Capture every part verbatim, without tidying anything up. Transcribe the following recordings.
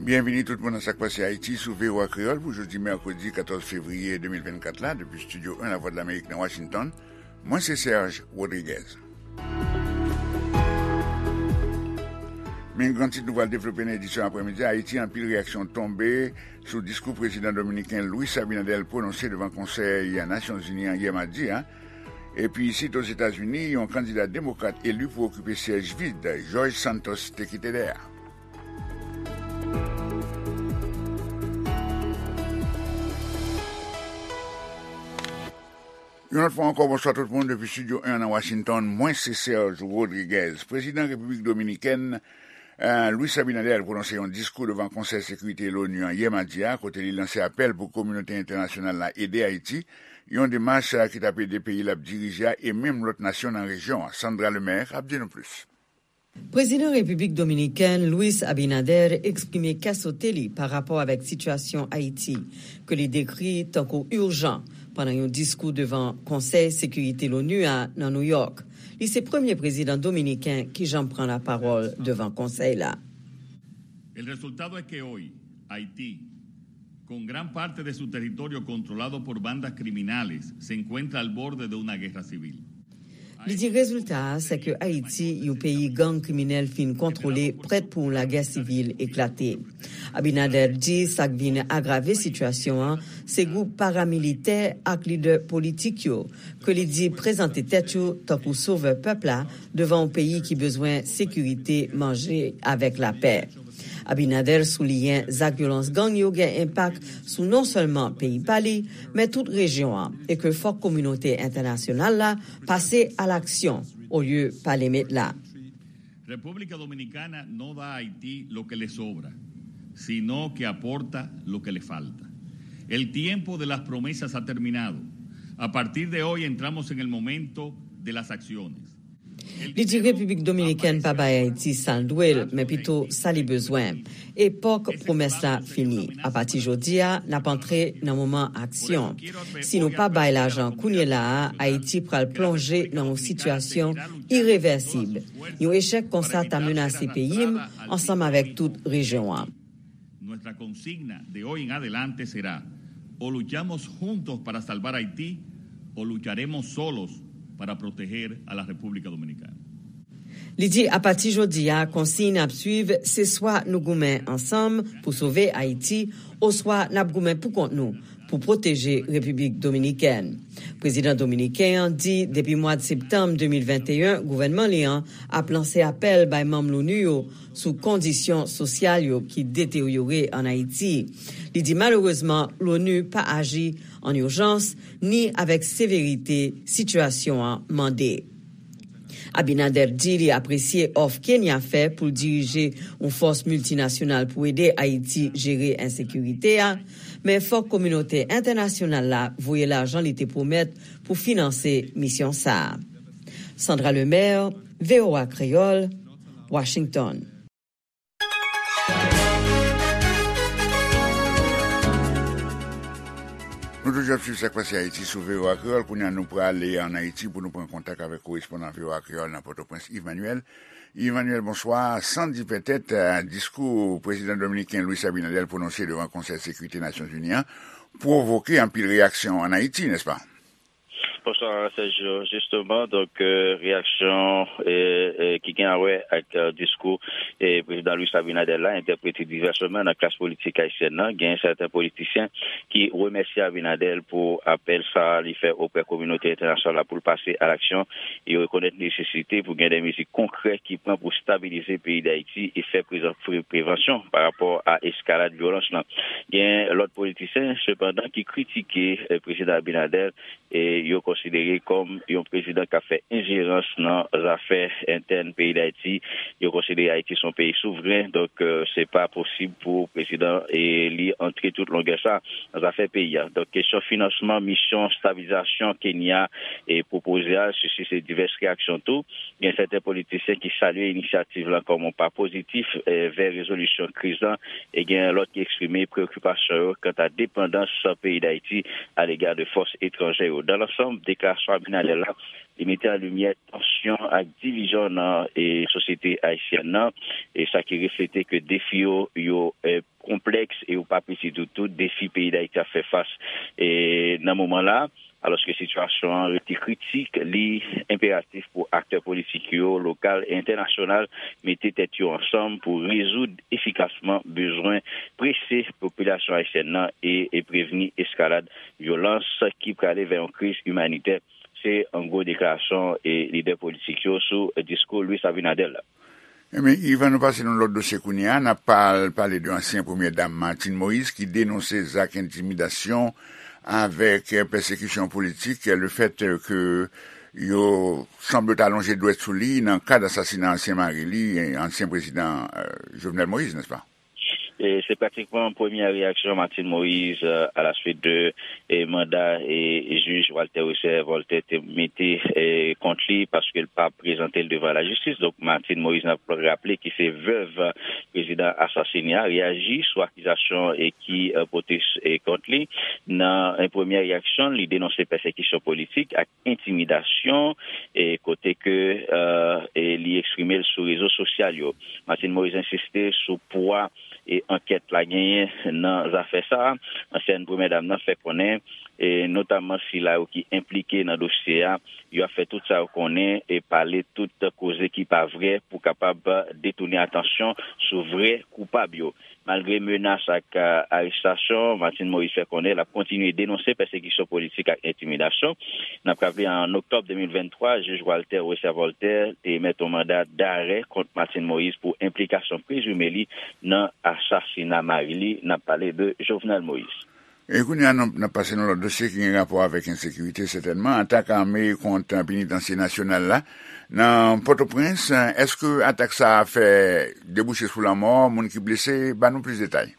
Byenvini tout moun nan Sa k Pase Ayiti sou V O A Kreyòl pou jodi mèkredi katòz fevriye de mil vennkat la, depi Estidyo en Lavwadlamerik nan Washington. Mwen se Serge Rodriguez. Men gran tit nou pral devlope nan edisyon aprèmidi a: Ayiti, anpil reyaksyon tonbe sou diskou prezidan dominiken Luis Abinader pwononse devan Konsèy Nasyonzini an yè madi a. Epi isit Ozetazini, yon kandida demokrat eli pou okipe syèj vid George Santos te kite dèyè a. Yon lòt fwa ankò, bonswa tout moun depi Estidyo en nan Washington. Mwen se Serge Rodriguez. Prezidan Repiblik Dominikèn, eh, Luis Abinader pwononse yon diskou devan Konsèy Sekirite Lonu an yè madi a, kote li lanse apèl pou kominote entènasyonal la ede Ayiti, yon demach, eh, ki t ap ede peyi l ap dirije a e menm lòt nasyon nan rejyon an. Sandra Lemaire ap di nou plis. Prezidan Repiblik Dominikèn Luis Abinader eksprime kè sote li pa rapò avèk sitiyasyon Ayiti, ke li dekri tankou ijan, pandan yon diskou devan Konsèy Sekirite Lonu a nan New York. Li se premye prezidan dominiken ki janm pran lapawòl devan konsèy la. El resultado es que hoy Haití, con gran parte de su territorio controlado por bandas criminales, se encuentra al borde de una guerra civil. Li di rezilta a, se ke Ayiti, yon peyi gang kriminèl fin kontwole, prèt pou yon lagè sivil eklate. Abinader di sa k vin agrave sitiyasyon an, se gwoup paramilitè ak lidè politik yo, ke li di prezante tèt yo tankou sovè pèp la devan yon peyi ki bezwen sekirite, manje avèk lapè. Abinader souliyen zak vyolans gang yo gen enpak sou non sèlman peyi pa li, men tout rejyon an, e ke fòk kominote entènasyonal la pase a laksyon olye pale met la. República Dominicana no da a Haití lo que le sobra, sino que aporta lo que le falta. El tiempo de las promesas ha terminado. A partir de hoy entramos en el momento de las acciones. Li di Repiblik Dominikèn pa bay Ayiti sa l dwe l, men pito sa li bezwen. Epòk pwomès la fini. Apati jodi a, n ap antre nan moman aksyon. Si nou pa bay lajan kounye la a, Ayiti pral plonje nan yon sitiyasyon irevèsib. Yon echèk konsa ta menase peyi m ansanm avèk tout rejyon an. Nuestra consigna de hoy en adelante será: o luchamos juntos para salvar Haití, o lucharemos solos para proteger a la República Dominicana. Li di apati jodi a, konsiy n ap swiv se swa nou goumen ansanm pou sove Ayiti, oswa n ap goumen poukont nou pou pwoteje Repiblik Dominikèn. Prezidan dominiken an di depi mwa septanm de mil venteyen, gouvènman li an ap lanse apèl bay manm Lonu yo sou kondisyon sosyal yo ki deteryore ann Ayiti. Li di malerezman, Lonu pa aji ann ijans ni avèk severite sitiyasyon an mande. Abinader di li apresye òf Kenya fè pou l dirije yon fòs miltinasyonal pou ede Ayiti jere ensekirite a, men fòk kominote entènasyonal la voye lajan li te pwomèt pou finanse misyon sa a. Sandra Lemaire, V O A Kreyòl, Washington. Nou toujou ap swiv Sa k Pase Ayiti sou V O A Kreyòl. Kounye a, nou prale ann Ayiti pou nou pran kontak avèk korespondan V O A Kreyòl nan Pòtoprens, Yves Manuel. Yves Manuel, bonswa. San di pètèt, eh, diskou prezidan dominiken Luis Abinader pwononse devan Konsèy Sekirite Nasyonzini an pwovoke anpil reyaksyon ann Ayiti, nèspa? Bonswa, Sergio. Jisteman, donk, eh, reyaksyon, eh, eh, ki gen a wè ak, eh, diskou, eh, prezidan Luis Abinader la, entèprete divèsman nan klas politik ayisyèn nan. Gen sèten politisyen ki remèsye Abinader pou apèl sa a li fè oprè kominote entènasyonal la pou l pase a laksyon. Yo rekonèt nesesite pou gen de mezi konkrè ki pran pou stabilize peyi Dayiti e fè prezan-, pre-, prevansyon pa rapò a eskalad vyolans lan. Gen lòt politisyen, sepandan, ki kritike, eh, prezidan Abinader e yo konsidere kòm yon prezidan k ap fè enjerans nan zafè entèn peyi Dayiti. Yo konsidere Ayiti se yon peyi souvren, donk, eh, se pa posib pou prezidan e li antre tout longè sa nan zafè peyi a. Donk, kesyon finansman misyon stabilizasyon Kenya e pwopoze a sisite divès reyaksyon tou. Gen sèten politisyen ki salye inisyativ lan kòm yon pa pozitif, eh, vè rezolisyon kriz lan, e gen lòt ki eksprime preokipasyon yo kanta depandans peyi Dayiti alega de fòs etranjè yo. Dans l'ensemble, deklarasyon Abinader la, li mete an limyè tansyon ak divizyon nan e sosyete ayisyèn nan, e sa ki reflete ke defi yo, yo e, konplèks e yo pa piti ditou, defi peyi Dayiti ap fè fas e nan moman la. Alòske sitiyasyon an rete kritik, li enperatif pou aktè politik yo, lokal e entènasyonal, mete tèt yo ansanm pou rezoud efikasman bezwen prese popilasyon ayisyèn nan e, e prevni eskalad vyolans ki prale vè yon kriz imanitè. Se an gwo deklarasyon e lidè politik yo sou diskou Luis Abinader la. Ebyen, Ivan, nou pase nan lòt dosye kounye a. N ap pal-, pale de ansyen premyè dam Martine Moïse ki denonse zak entimidasyon avèk pèsekisyon politik, le fèt ke yo sanble ta lonje dwèt sou li nan kad asasina ansyen mari li, ansyen prezidan, euh, Jovenel Moïse, nèspa? E se pratikman premyè reyaksyon Martine Moïse, euh, à la suite de e manda e jij Walter Wesser Voltaire te mete e kont li paske l pa prezante l devan lajistis. Donk, Martine Moïse, n ap raple, ki se vèv prezidan asasine a, reyaji sou akizasyon e ki e pote e kont li. Nan e premyè reyaksyon, li denonse pèsekisyon politik ak entimidasyon e kote ke e e li eksprime l sou rezo sosyal yo. Martine Moïse ensiste sou pwa e ankèt la genyen nan zafè sa a. Ansyèn premyè dam nan fè konnen, e notamman sila yo ki enplike nan dosye a, yo ap fè tout sa yo konnen e pale tout koze ki pa vrè pou kapab detounen atansyon sou vrè koupab yo. Malgre menas ak a, arestasyon, Martine Moïse fè konnen l ap kontinye denonse pèsekisyon politik ak entimidasyon. N ap raple, an oktòb de mil venntwa, jij Walter Wesser Voltaire te emèt yon manda darè kont Martine Moïse pou enplikasyon prezime li nan asasina mari li, n ap pale de Jovenel Moïse. E kounye a, n ap, n ap pase nan lòt dosye ki gen rapò avèk ensekirite, sètènman. Atak ame kont Penitansye Nasyonal la nan Pòtoprens. Èske atak sa a fè debouche sou lanmò, moun ki blese? Ban nou plis detay.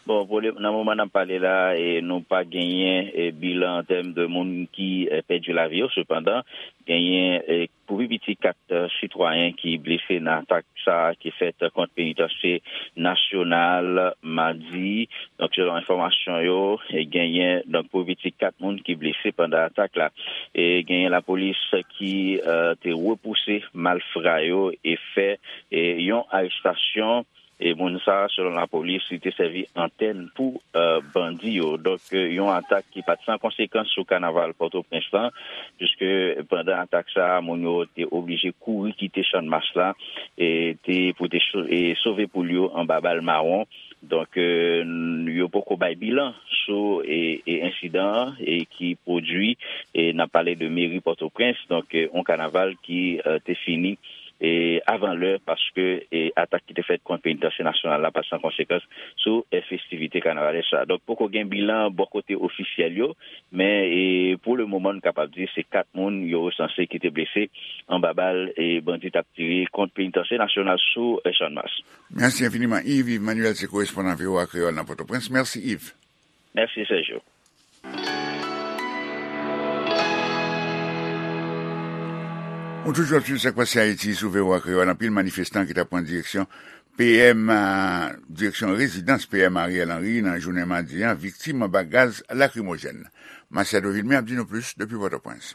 Bon, pou le, nan moman n ap pale la, e, nou pa genyen, e, bilan an tèm de moun ki, e, pèdi lavi yo. Sepandan, genyen, e, pou pi piti kat, e, sitwayen ki blese nan atak sa a ki fèt kont Penitansye Nasyonal madi. Donk, selon enfòmasyon yo, e, genyen, donk, pou pi piti kat moun ki blese pandan atak la. E genyen lapolis ki, e, te repouse malfra yo e fè, e, yon arestasyon. E moun sa a, selon lapolis, li te sèvi antèn pou, e, bandi yo. Donk, e, yon atak ki pa t san konsekans sou kanaval Pòtoprens lan, piske pandan atak sa a, moun yo te oblije kouri kite Channmas la, e te, pou te so-, e sove poul yo anba bal mawon. Donk, e, n-, yo poko bay bilan sou, e, e ensidan an, e ki pwodui, e n ap pale de meri Pòtoprens, donk, e, yon kanaval ki, e, te fini e avan lè, paske, e, atak ki te fèt kont Penitansye Nasyonal la pa t san konsekans sou, e, festivite kanavalès la. Donk, poko gen bilan bò kote ofisyèl yo, men, e, pou le moman, n kapab di se kat moun yo resanse ki te blese anba bal, e, bandi t ap tire kont Penitansye Nasyonal sou, e, Channmas. Mèsi enfiniman, Yves. Yves Manuel se korespondan V O A Kreyòl nan Pòtoprens. Mèsi, Yves. Mèsi, Sergio. Ou toujou ap swiv Sa k Pase Ayiti sou V O A Kreyòl. Anpil manifestan ki t ap pran direksyon P M, a, direksyon rezidans P M Ariel Henry nan jounen madi a viktim anba gaz lakrimojèn. Machado Vilmé ap di nou plis depi Pòtoprens.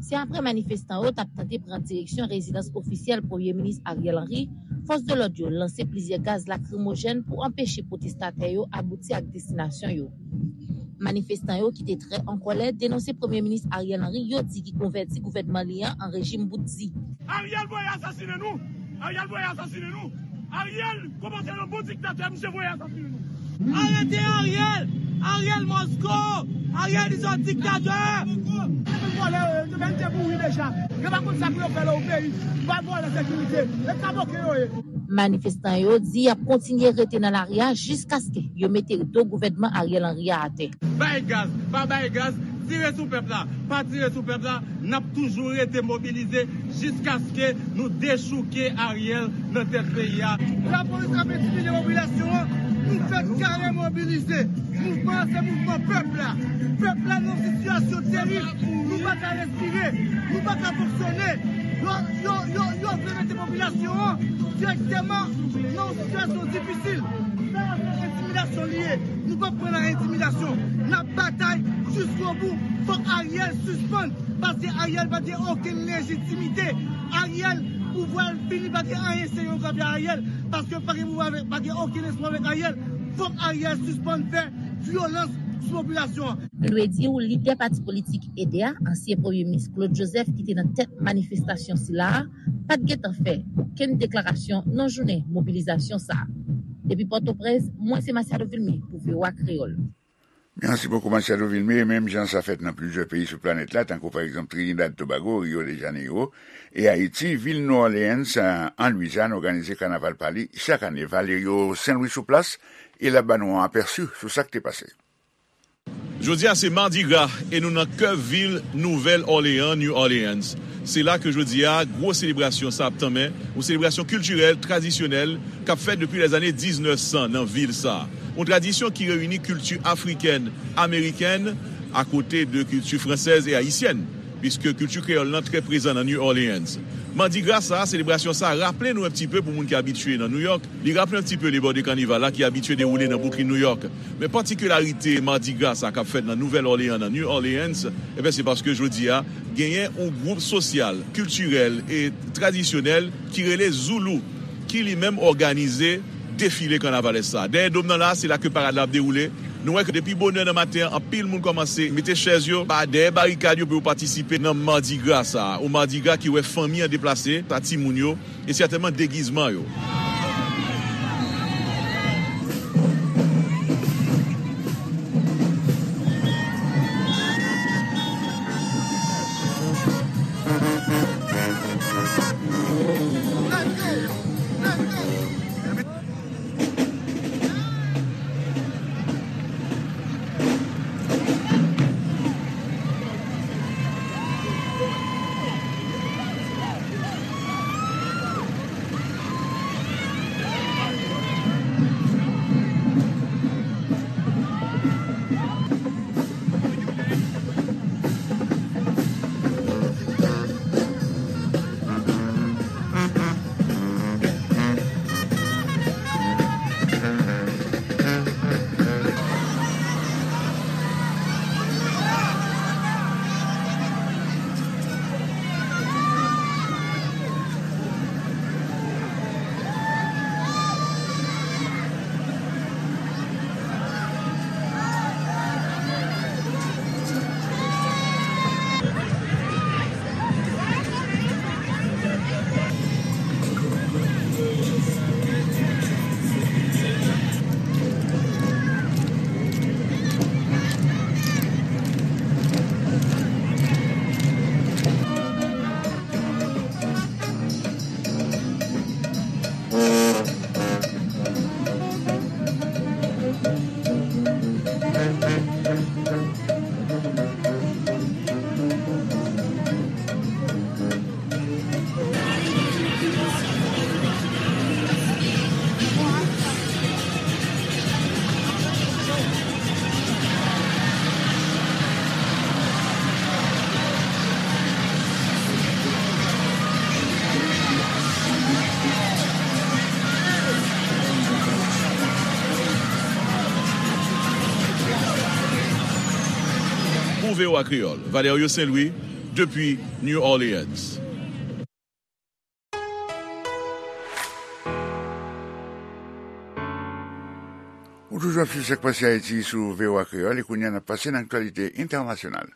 Se apre manifestan yo t ap tante pran direksyon rezidans ofisyèl Premye Minis Ariel Henry, fòs de lòd yo lanse plizyè gaz lakrimojèn pou anpeche pwotestatè yo abouti ak destinasyon yo. Manifestan yo ki te trè an kòlè denonse Premye Minis Ariel Henry, yo di ki konvèti gouvènman li an an rejim bout di. Ariel voye asasinen nou! Ariel voye asasinen nou! Ariel kòmanse yon bon diktatè, misye voye asasinen nou! Arete Ariel! Ariel must go! Ariel is a dictator! Vòlè yo, yo te mèt te mouri deja. Yo pa konn sa pou yo fè la o peyi. Vòlè sekirite. E kamoke yo ye. Manifestan yo di y ap kontinye rete nan lari a jiskaske yo mete do gouvènman Ariel Henry a atè. Bay gaz, pa bay gaz, tire sou pèp la, pa tire sou pèp la, n ap toujou rete mobilize jiskaske nou dechouke Ariel nan tèt peyi a. Lapolis ap entimide popilasyon an, nou fèk kare mobilize. Mouvman an se mouvman pèp la. Pèp la nan yon sitiyasyon terib. Nou pa ka respire. Nou pa ka fonksyone. Yo, yo, yo, yo vle mete popilasyon an dirèkteman nan yon sitiyasyon difisil. Sa a se entimidasyon li ye. Nou p ap pran nan entimidasyon. N ap batay jiskobou. Fòk Ariel sispann. Paske Ariel pa gen okenn lejitimite. Ariel, pouvwa l fini, pa gen anyen serye yo ka fè Ariel. Paske pa gen pouvwa avèk, pa gen okenn espwa avèk Ariel. Fòk Ariel sispann fè vyolans sou popilasyon an. Nou dwe di w, lidè pati politik EDE a, ansyen premye minis Claude Joseph, ki te nan tèt manifestasyon sila a, pa t gentan fè okenn deklarasyon nan jounen mobilizasyon sa a. Depi Pòtoprens, mwen se Masiado Vilmé pou V O A Kreyòl. Mèsi bokou, Masiado Vilmé. Menm jan sa fèt nan plizyè peyi sou planèt la, tankou pa egzanp Trinidad Tobago, Rio de Janeiro, e Ayiti, vil New Orleans, an Lwizyàn, òganize kanaval pa li chak ane. Valerio Saint-Louis sou plas, e l ap ba nou yon apèsi sou sa k te pase. Jodi a se Mardi Gras e nou nan kè vil Nouvèl Òleyan, New Orleans. Se la ke jodi a gwo selebrasyon sa ap tanmen, yon selebrasyon kiltirèl, tradisyonèl, k ap fèt depi lèzane diznèf san nan vil sa. Yon tradisyon ki reyini kilti afrikèn, amerikèn, akote de kilti fransèz e ayisyèn, piske kilti kreyòl lan trè prezan nan New Orleans. Mardi Gras sa, selebrasyon sa, raple nou un petit peu pou moun ki abitye nan New York, li raple un petit peu lebò de kanival la ki abitye dewoule nan Brooklyn, New York. Men patikilarite Mardi Gras sa k ap fèt nan Nouvèl Òleyan, nan New Orleans, ebyen, se paske jodi a, genyen yon gwoup sosyal, kiltirèl e tradisyonèl ki rele Zoulou, ki li menm òganize defile kanavalès sa. Dèyè dòm nan la, se la ke parad la ap dewoule. Nou wè ke depi bonè nan maten an, anpil moun kòmanse mete chèz yo ba dèyè barikad yo pou yo patisipe nan Mardi Gras sa. Yon Mardi Gras ki wè fanmi an deplase, pa timoun yo, e sètènman degizman yo. Pou V O A Kreyòl, Valerio Saint-Louis, depi New Orleans. Ou toujou ap swiv Sak Pase Ayiti sou V O A Kreyòl, e kounye a n ap pase nan aktyalite entènasyonal.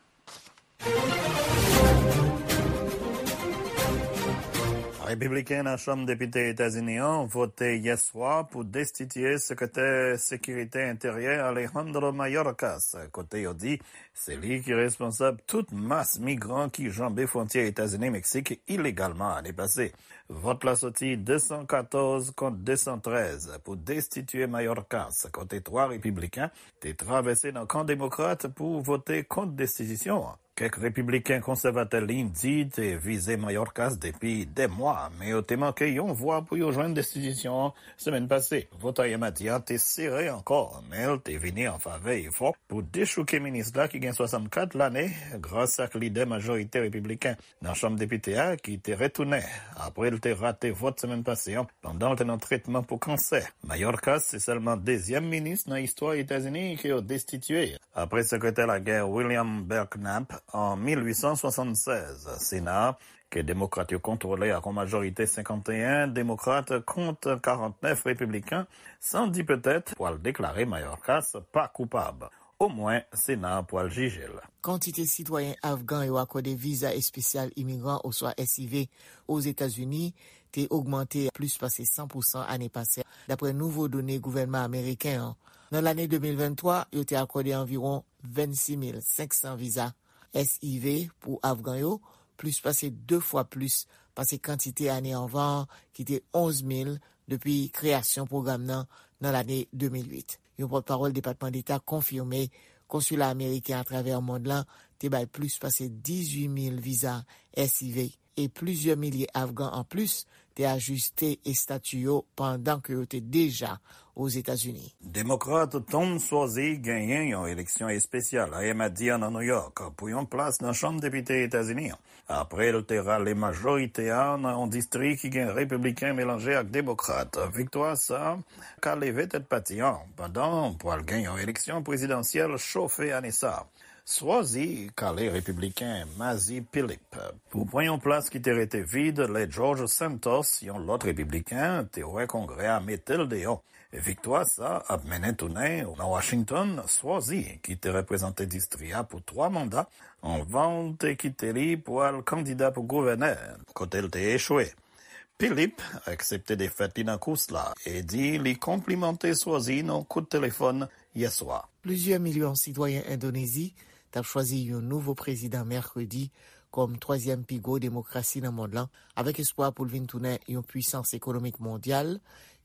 Repibliken nan Chanm Depite Etazini an vote yè swa pou destitiye Sekretè Sekirite Enteryè Alejandro Mayorkas, kote yo di se li ki responsab tout mas migran ki janbe fwontyè Etazini-Meksik ilegalman ane pase. Vòt la soti de san katòz kont de san trèz pou destitiye Mayorkas, kote twa repibliken te travèse nan kan demokrat pou vote kont destitiyasyon an. Kèk repibliken konsèvatè liy di te vize Mayorkas depi dè mwa, men yo te manke yon vwa pou yo jwenn destitisyon an semèn pase. Vòt ayè madi a te sere ankò, men l te vini an favè efò pou dechouke minis la ki gen swasannkat lane gras ak lidè majorite repibliken nan Chanm Depite a ki te retounen apre l te rate vòt semèn pase an pandan l te nan tretman pou kansè. Mayorkas se sèlman dezyèm minis nan istwa Etazini ke yo destitye, apre sekretè lagè William Belknap an mil uit san swasannsèz. Sena a, ke demokrat yo kontwole ak yon majorite senkanteyen demokrat kont karantnèf repibliken, san di petèt pwal deklare Mayorkas pa koupab. Omwen, Sena a pwal jije l. Kantite sitwayen afgan yo akòde viza espesyal imigran oswa S I V Ozetazini te ogmante plis pase san pousan ane pase, dapre nouvo done gouvènman ameriken an. Nan lane de mil venntwa, yo te akòde anviwon vennsis mil senk san viza S I V pou afgan yo, plis pase de fwa plis pase kantite ane anvan an ki te onz mil depi kreyasyon pwogram nan nan lane de mil uit. Yon pòtpawòl Depatman Deta konfime konsila ameriken atravè mond lan te bay plis pase dizuit mil viza S I V e plizyè milye afgan anplis te ajiste estati yo pandan ke yo te deja Ozetazini. Demokrat Tom Suozzi genyen yon eleksyon espesyal ayè madi a nan New York pou yon plas nan Chanm Depite Etazini an, apre l te rale majorite a nan yon distri ki gen repibliken melanje ak demokrat. Viktwa sa a ka leve tèt pati an pandan pwal gen yon eleksyon prezidansyèl chofe ane sa a. Suozzi kale repibliken Mazi Philip pou pran yon plas ki te rete vid lè George Santos, yon lòt repibliken, te wè Kongrè a mete l deyò. Viktwa sa a ap mennen tounen nan Washington Suozzi, ki te reprezante distri a pou twa manda, anvan l te kite li pou al kandida pou gouvènè, kote l te echwe. Philip aksepte defèt li nan kous la e di li konplimante Suozzi nan kout telefòn yè swa. Plizyè milyon sitwayen Endonezi t ap chwazi yon nouvo prezidan mèkredi kòm twazyèm pi gwo demokrasi nan mond lan, avèk espwa pou l vin tounen yon pwisans ekonomik mondyal,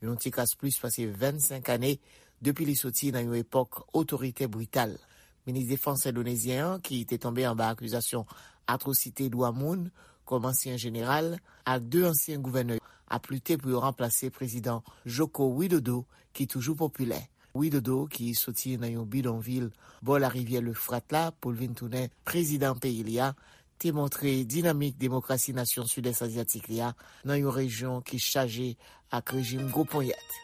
yon ti kras plis pase vennsenk ane depi li soti nan yon epòk otoritè brital. Minis defans endonezyen an, ki te tonbe anba akizasyon atwosite dwa moun kòm ansyen jeneral, ak de ansyen gouvènè yo ap lite pou yo ranplase prezidan Joko Widodo, ki toujou popilè. Widodo, ki soti nan yon bidonvil bò larivyè Lefrat la pou l vin tounen prezidan peyi li a, te montre dinamik demokrasi nasyon Sidès Azyatik li a nan yon rejyon ki chaje ak rejim gwo ponyèt.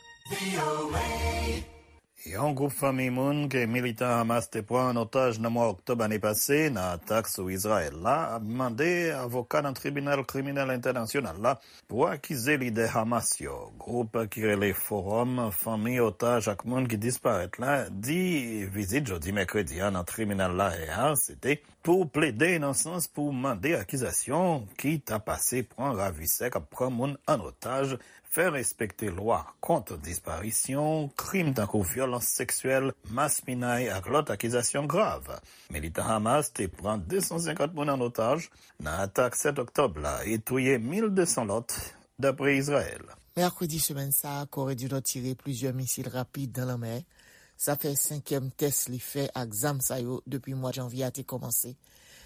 Yon gwoup fanmi moun ke militan Hamas te pran an otaj nan mwa oktòb ane pase nan atak sou Izrayèl la ap mande avoka nan Tribinal Kriminèl Entènasyonal la pou akize lidè Hamas yo. Gwoup ki rele Fowòm Fanmi Otaj ak Moun ki Disparèt la di vizit jodi mèkredi a nan tribinal Lahè a se te pou plede nan sans pou mande akizasyon ki ta pase pran ravisè k ap pran moun an otaj, fè respekte lwa kont disparisyon, krim tankou vyolans seksyèl, maspinay ak lòt akizasyon grav. Militan Hamas te pran de san senkant moun an otaj nan atak sèt oktòb la e touye mil de san lòt, dapre Izrayèl. Mèkredi semèn sa a, Kore di Nò tire plizyè misil rapid nan lanmè. Sa fè senkyèm tès li fè ak zam sa yo depi mwa janvye a te kòmanse.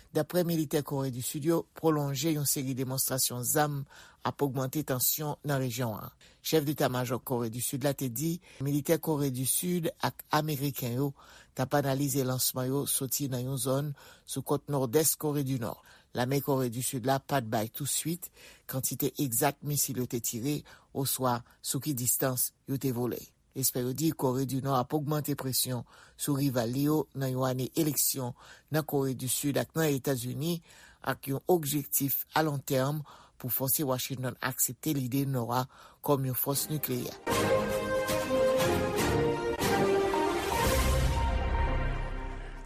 Dapre militè Kore di Sid yo, pwolonje yon seri demonstrasyon zam ap ogmante tansyon nan rejyon an. Chèf deta majò Kore di Sid la te di militè Kore di Sid ak ameriken yo t ap analize lansman yo soti nan yon zòn sou kòt nòdès Kore di Nò. Lame Kore di Sid la pa t bay touswit kantite egzak misil yo te tire oswa sou ki distans yo te vole. Espè yo di Kore di Nò ap ogmante presyon sou rival li yo nan yon ane eleksyon nan Kore di Sid ak nan Etazini, ak yon objektif alontèm pou fòse Washington aksepte lide Nò a kòm yon fòs nikleyè.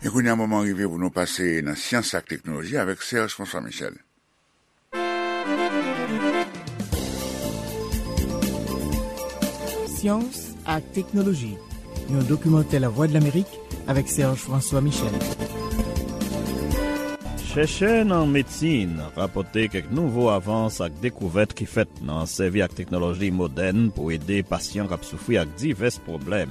E kounye a, moman rive pou nou pase nan syans ak teknoloji avèk Serge François Michel. Syans ak teknoloji, yon dokimantè Lavwadlamerik avèk Serge François Michel. Chèchè nan medsin rapòte kèk nouvo avans ak dekouvèt ki fèt nan sèvi ak teknoloji modèn pou ede pasyan k ap soufri ak divès pwoblèm.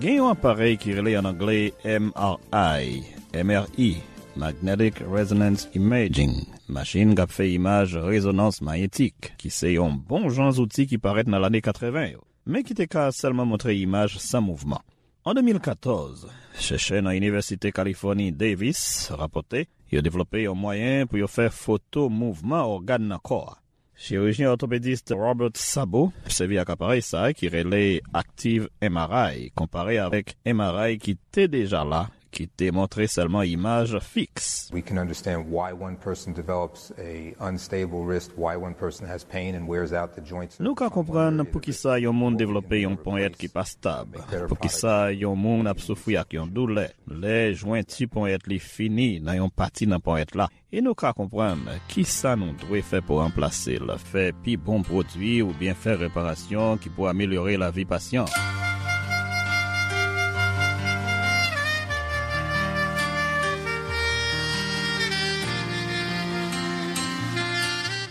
Gen yon aparèy ki rele an anglè M R I, M R I, Magnetic Resonance Imaging, machin k ap fè imaj rezonans mayetik, ki se yon bon jan zouti ki parèt nan lane katreven yo, men ki te ka sèlman montre imaj san mouvman. An de mil katòz, chèchè nan Inivèsite Kalifòni Davis rapòte yo devlope yon mwayen pou yo fè foto mouvman ògàn nan kò a. Chirijyen òtopedis Robert Sabo sèvi ak aparèy sa a ki rele Active M R I, konpare avèk M R I ki te deja la, ki te montre sèlman imaj fiks. We can understand why one person develops a unstable wrist, why one person has pain and wears out the joints. Nou ka konprann poukisa yon moun devlope yon ponyèt ki pa stab, poukisa yon moun ap soufri ak yon doulè lè jwenti ponyèt li fini nan yon pati nan ponyèt la. E nou ka konprann kisa nou dwe fè pou ranplase l, fè pi bon pwodui oubyen fè reparasyon ki pou amelyore lavi pasyan.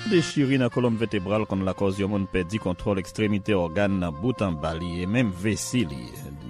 Dechiri nan kolonn vètebral konn lakòz yon moun pèdi kontwòl ekstremite ògàn nan bout anba li e menm vesi li,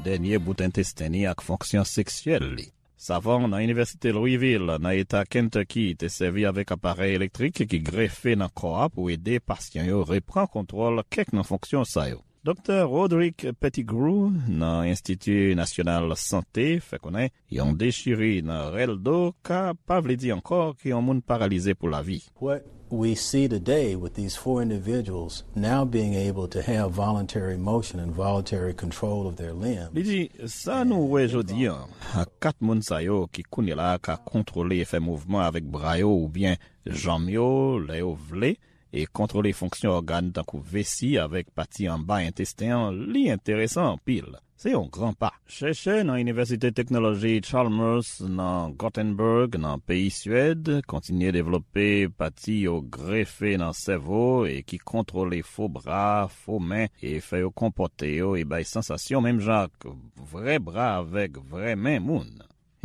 dènye bout entesten li ak fonksyon seksyèl li. Savan nan Inivèsite Louisville, nan eta Kentucky, te sèvi avèk aparèy elektrik ki grefe nan kò a pou ede pasyan yo reprann kontwòl kèk nan fonksyon sa yo. Doktè Roderick Pettigrew, nan Enstiti Nasyonal Sante, fè konnen yon dechiri nan rèl do ka pa vle di ankò ke yon moun paralize pou lavi. What we see today with these four individuals now being able to have voluntary motion and voluntary control of their limbs. Li di, sa nou wè jodi an, ak kat moun sa yo ki kounye la ka kontwole e fè mouvman avèk bra yo oubyen janm yo lè yo vle, e kontwole fonksyon ògàn tankou vesi avèk pati anba entesten an, li enteresan anpil. Se yon gran pa. Chèchè nan Inivèsite Teknoloji Chalmers nan Gothenburg, nan peyi Swèd, kontinye devlope pati yo grefe nan sèvo e ki kontwole fo bra, fo men, e fè yo konpòte yo e bay sansasyon menm jan ak vrè bra avèk vrè men moun.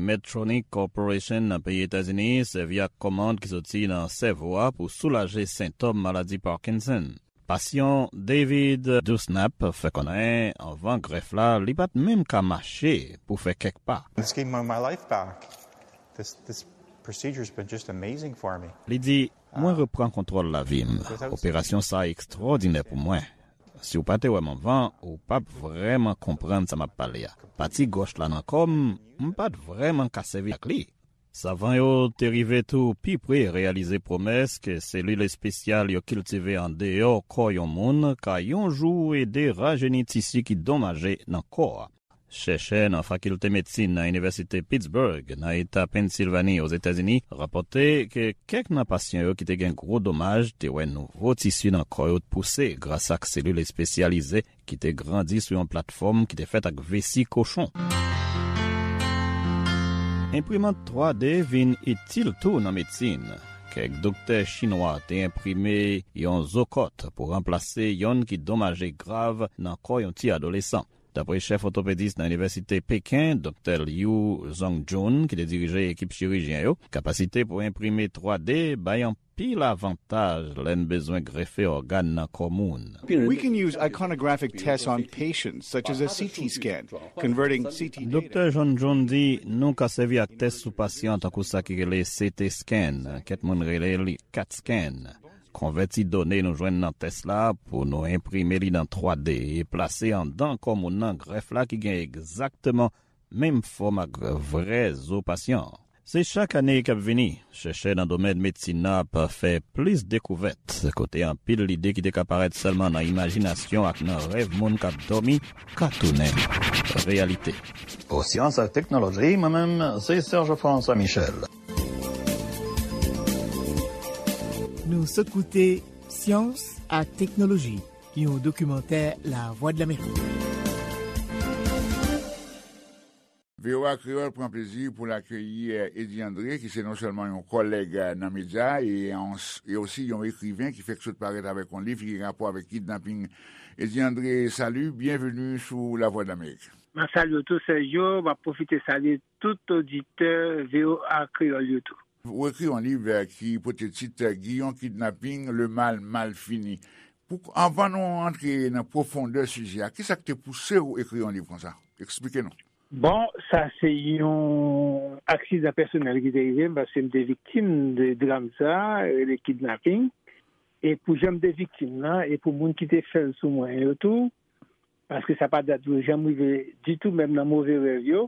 Medtronic Corporation nan peyi Etazini sèvi ak kòmand ki soti nan sèvo a pou soulaje sentòm maladi Parkinson. Pasyan David Dewsnap fè konnen anvan grèf la, li pa t menm ka mache pou fè kèk pa. This gave my, my life back. This, this procedure has been just amazing for me. Li di, mwen reprann kontwòl lavi m. Operasyon sa a ekstwòdinè pou mwen. Si w pa te wè m anvan, ou p ap vrèman konprann sa m ap pale a. Pati gòch la nan kò m, m pa t vrèman ka sèvi ak li. Savan yo te rive tou pi pre reyalize pwomès ke selil espesyal yo kiltive andeyò kò yon moun ka yon jou ede rajeni tisi ki donmaje nan kò a. Chèchè nan Fakilte Medsin nan Inivèsite Pittsburgh, nan Eta Pennsilvani, Ozetazini, rapòte ke kèk nan pasyan yo ki te gen gwo domaj te wè nouvo tisi nan kò yo pouse gras ak selil espesyalize ki te grandi sou yon platfòm ki te fèt ak vesi kochon. Enprimant twa D vin itil tou nan medsin. Kèk doktè chinwa te enprime yon zo kòt pou ranplase yonn ki donmaje grav nan kò yon ti adolesan. Dapre chèf òtopedis nan Inivèsite Peken, Doktè Liu Zhongjun, ki te dirije ekip chirijyen yo, kapasite pou enprime twa D bay anpil avantaj lè n bezwen grefe ògàn nan kò moun. We can use iconographic tests on patients, such as a C T scan, converting C T data. Doktè Zhongjun di, nou ka sèvi ak tès sou pasyan tankou sa ki rele C T scan, kèk moun rele li cat scan. Konvèti done nou jwenn nan tès la pou nou enprime li nan twa D e plase anndan kò moun nan grèf la ki gen egzakteman menm fòm ak vrè zo pasyan an. Se chak ane k ap vini, chèchè nan domèn medsin nan ap fè plis dekouvèt, kote anpil lide ki te ka parèt sèlman nan imajinasyon ak nan rèv moun k ap dòmi ka tounen reyalite. Pou Syans ak Teknoloji, mwen menm, se Serge François Michel. Nou sot koute Syans ak Teknoloji, yon dokimantè Lavwadlamerik. V O A Kreyòl pran plezi pou l akeyi Eddy André, ki se non sèlman yon kòlèg nan medya e, e osi yon ekriven ki fèk sot parèt avèk yon liv ki gen rapò avèk kidnaping. Eddy André, salut, bienvenue sou Lavwadlamerik. M ap salye w tou, Sergio. M ap pwofite salye tout oditè V O A Kreyòl yo tou. Ou ekri yon liv, eh, ki pote tit, eh, Giyon Kidnaping, Le Mal Mal Fini. Pou, anvan nou antre nan pwofondè sijè a, kisa k te pouse w ekri yon liv konsa? Eksplike nou. Bon, sa se yon aksidan pèsonèl ki te rive m, paske m te viktim de dram sa, rele kidnaping. E pou jan m te viktim nan, e pou moun ki te fè l sou mwen yo tou, paske sa pa dat yo janm rive ditou, menm nan move rèv yo,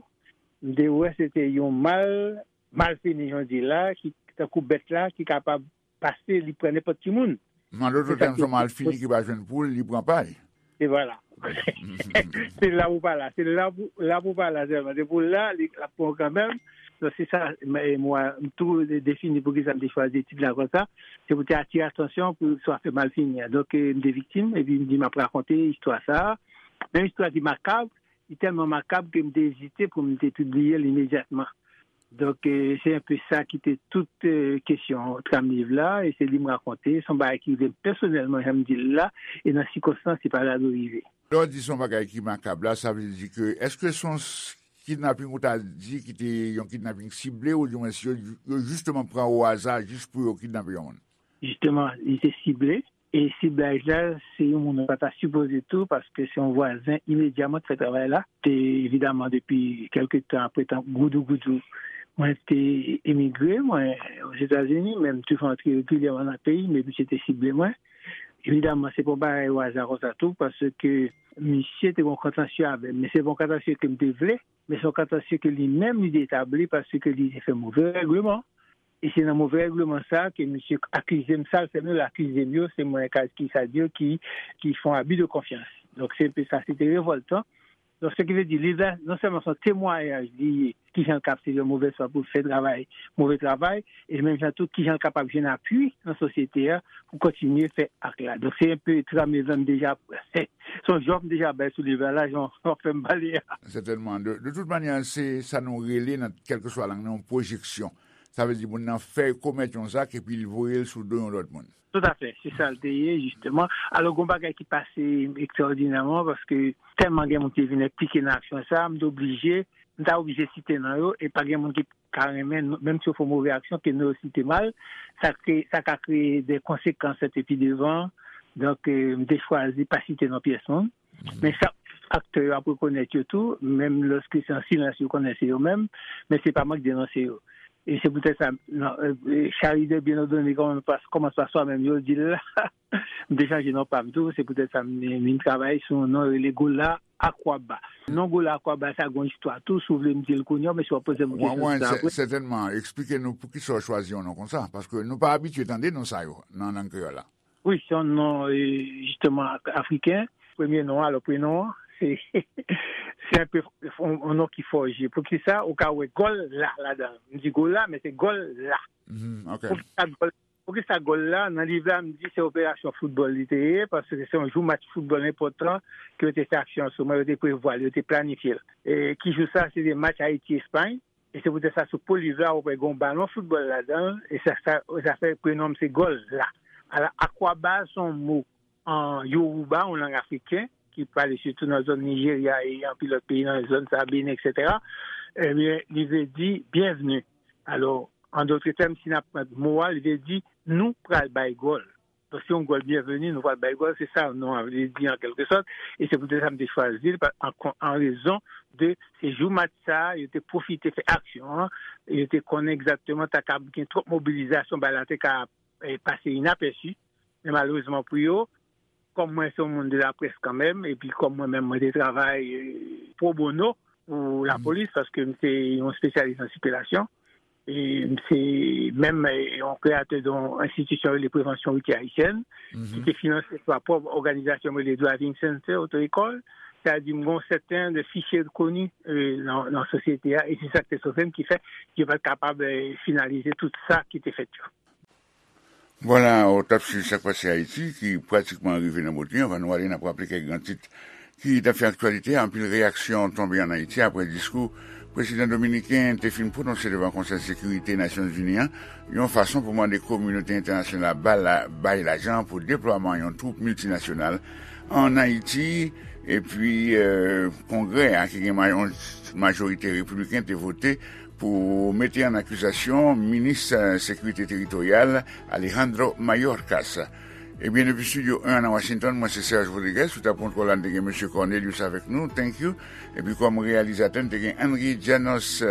m te wè se te yon mal, mal fini, jan w di la, ki tankou bèt la, ki kapab pase, li pran nenpòt ki moun. An dòt tèm, se yon mal fini ki pa jwenn poul, li pran pay. E vwala. Se la pou pa la. Se la pou, la pou pa la sèlman. Se pou la, li, l ap pran kanmenm. Donk, se sa, m, m tou defini poukisa m te chwazi tit la konsa. Se pou te atire atansyon pou sa fè mal fini an. Donk, eh, m te viktim, epi m di m ap rakonte istwa sa. Men istwa ki makab, li tèlman makab ke m te ezite pou m te pibliye l imedyatman. Donk, eh, se enpe sa ki te tout, eh, kesyon tram liv la, e se li m rakonte, se yon bagay ki rive m pèsonèlman, jan m di l la, e nan sikonstans, se pa la dwe rive. Lè w di se yon bagay ki makab la, sa vle di ke, èske se yon s-, kidnaping ou ta di ki te yon kidnaping sible, oudimwens yo, yo jisteman pran o aza jis pou yo kidnape yon moun? Jisteman, li te sible. E siblaj la, se yon moun ou pa ta sipoze tou, paske se yon vwazen imedya mwen te fè travay la. Te, evidaman, depi kèlke tan apre tan goudougoudou, mwen te emigre, mwen, Ozetazini, men m toujou antre regilyèman nan peyi, men misye te sible mwen. Evidaman, se pa yon bagay o aza konsa tou, paske misye te gen yon kontansye avè m, men se pa yon kontansye ke m te vle, men se yon kontansye ke li menm li te etabli paske li te fè move règleman. E se nan move règleman sa a ke misye akize m, sa l fè m yo, l akize m yo, se mwen, ka, ki sa di yo, ki, ki fè yon abi de konfyans. Donk, se enpe sa, se te revòltan. Donk, se ki vle di, liv la, non sèlman se yon temwayaj li ye, kijan l ka ap sèvi yon movèz fwa pou l fè travay, move travay, e menm jan tou, kijan l kapab jwenn apui nan sosyete a pou kontinye fè ak la. Donk, se enpe tram liv la m deja, se yon jòf m deja bay sou liv la, la, jan w ap fè m pale a. Sètènman. De, de tout manyè, se sa nou rele nan kèlkeswa lang nan, yon pwojeksyon. Sa vle di moun nan fè, komèt yon zak epi l voye l sou do yon lòt moun. Toutafè, se sa l te ye, jisteman. Alò, gen yon bagay ki pase ekstraòdinèman, paske tèlman gen moun ki vin enplike nan aksyon sa a, m te oblije, m ta oblije site non yo, e pa gen moun ki ka renmen, menm si yo fè yon move aksyon, ke non yo site mal, sa kreye, sa ka kreye de konsekans epi devan. Donk, eh, m te chwazi pa site non pyès moun. Men chak aktè yo ap rekonèt yo tou, menm lòske se an silans yo konnen se yo menm, men se pa mwen k denonse yo. E se poutèt sa, non, eh, eh, charité bien ordonnée commence par, commence par soi-même, yo di l la. M te chanje non pa m tou, se poutèt sa m vin travay sou yon non rele Gola Akwaba. Non Gola Akwaba sa gen yon istwa tou, si w vle m di l kounye a, men si w ap poze m yon kesyon sou sa apre. Sètènman, eksplike nou poukisa w chwazi yon non konsa, paske nou pa abitye tande non sa yo nan lang kreyòl la. Wi, se yon non, eh, jisteman, afriken. Premye non an, alò, prenon an, se, se enpe yon, yon non ki fòje. Poukisa ou ka wè gòl la ladan l? M di gòl la, men se gòl la. Poukisa gòl, poukisa gòl la? Nan liv la, m di se operasyon foutbòl li te ye, paske se yon jou match foutbòl enpòtan ke yo te fè aksyon an sou mwen, yo te prevwa l, yo te planifye l. E ki jou sa? Se te match Ayiti-Espay. E se poutèt sa, sou po liv la, ou wè gen yon balon foutbòl ladan l, e sa, sa, sa fè prenon m se Gòl la. Ala, akwaba se yon mo an Yoruba, yon lang afriken, ki pale sitou nan zòn Nijerya e anpil lòt peyi nan zòn sa, Benin, etsetera. Ebyen, li vle di byenvni. Alò, an dòt tèm, si n ap pran mo a, li vle di nou pral bay gòl. Donk, se yon gòl byenveni, nou pral bay gòl, se sa non an vle di an kèlke sòt, e se poutèt sa m te chwazi l, pa, an, an rezon de se jou match sa a, yo te pwofite fè aksyon an, yo te konnen egzakteman ta kab gen twòp mobilizasyon, bagay la te ka, eh, pase inapèsi, men malerezman pou yo, kòm mwen se yon moun de laprès kanmenm, epi kòm mwen menm mwen te travay, eh, pro bono pou lapolis, paske m se yon espesyalis nan sikilasyon, e m se menm, eh, yon kreyatè de yon enstitisyon rele Prevansyon Woutyè Ayisyèn, ki te finanse pa pwòp òganizasyon m rele Driving Center, oto ekòl, sa di m gen yon sèten de fichye koni, eh, nan, nan sosyete a, e se sa k te sove m, ki fè yo pa t kapab, eh, finalize tout sa ki te fèt yo. Vwala, w t ap swiv Sa k Pase Ayiti, ki pratikman rive nan bout li. Anvan nou ale, n ap raple kèk gran tit ki t ap fè aktyalite a. Anpil reyaksyon tonbe ann Ayiti apre diskou prezidan dominiken te fin pwononse devan Konsèy Sekirite Nasyonzini an, yon fason pou mande kominote entènasyonal ba la, bay lajan pou deplwaman yon twoup miltinasyonal ann Ayiti. Epi, eh, Kongrè a, ki gen ma-, yon majorite repibliken, te vote pou mete ann akizasyon minis, eh, sekirite teritoryal Alejandro Mayorkas. Ebyen, depi Studio en an nan Washington, mwen se Serge Rodriguez, sou tab kontwòl la n te gen mesye Cornelius avèk nou, thank you. Epi kòm reyalizatè n te gen Henry Janos.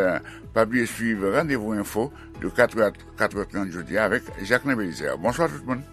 Pa bliye swiv Randevou Enfo de katrè a katrè trant jodi a avèk Jacquelin Belizaire. Bonswa tout moun.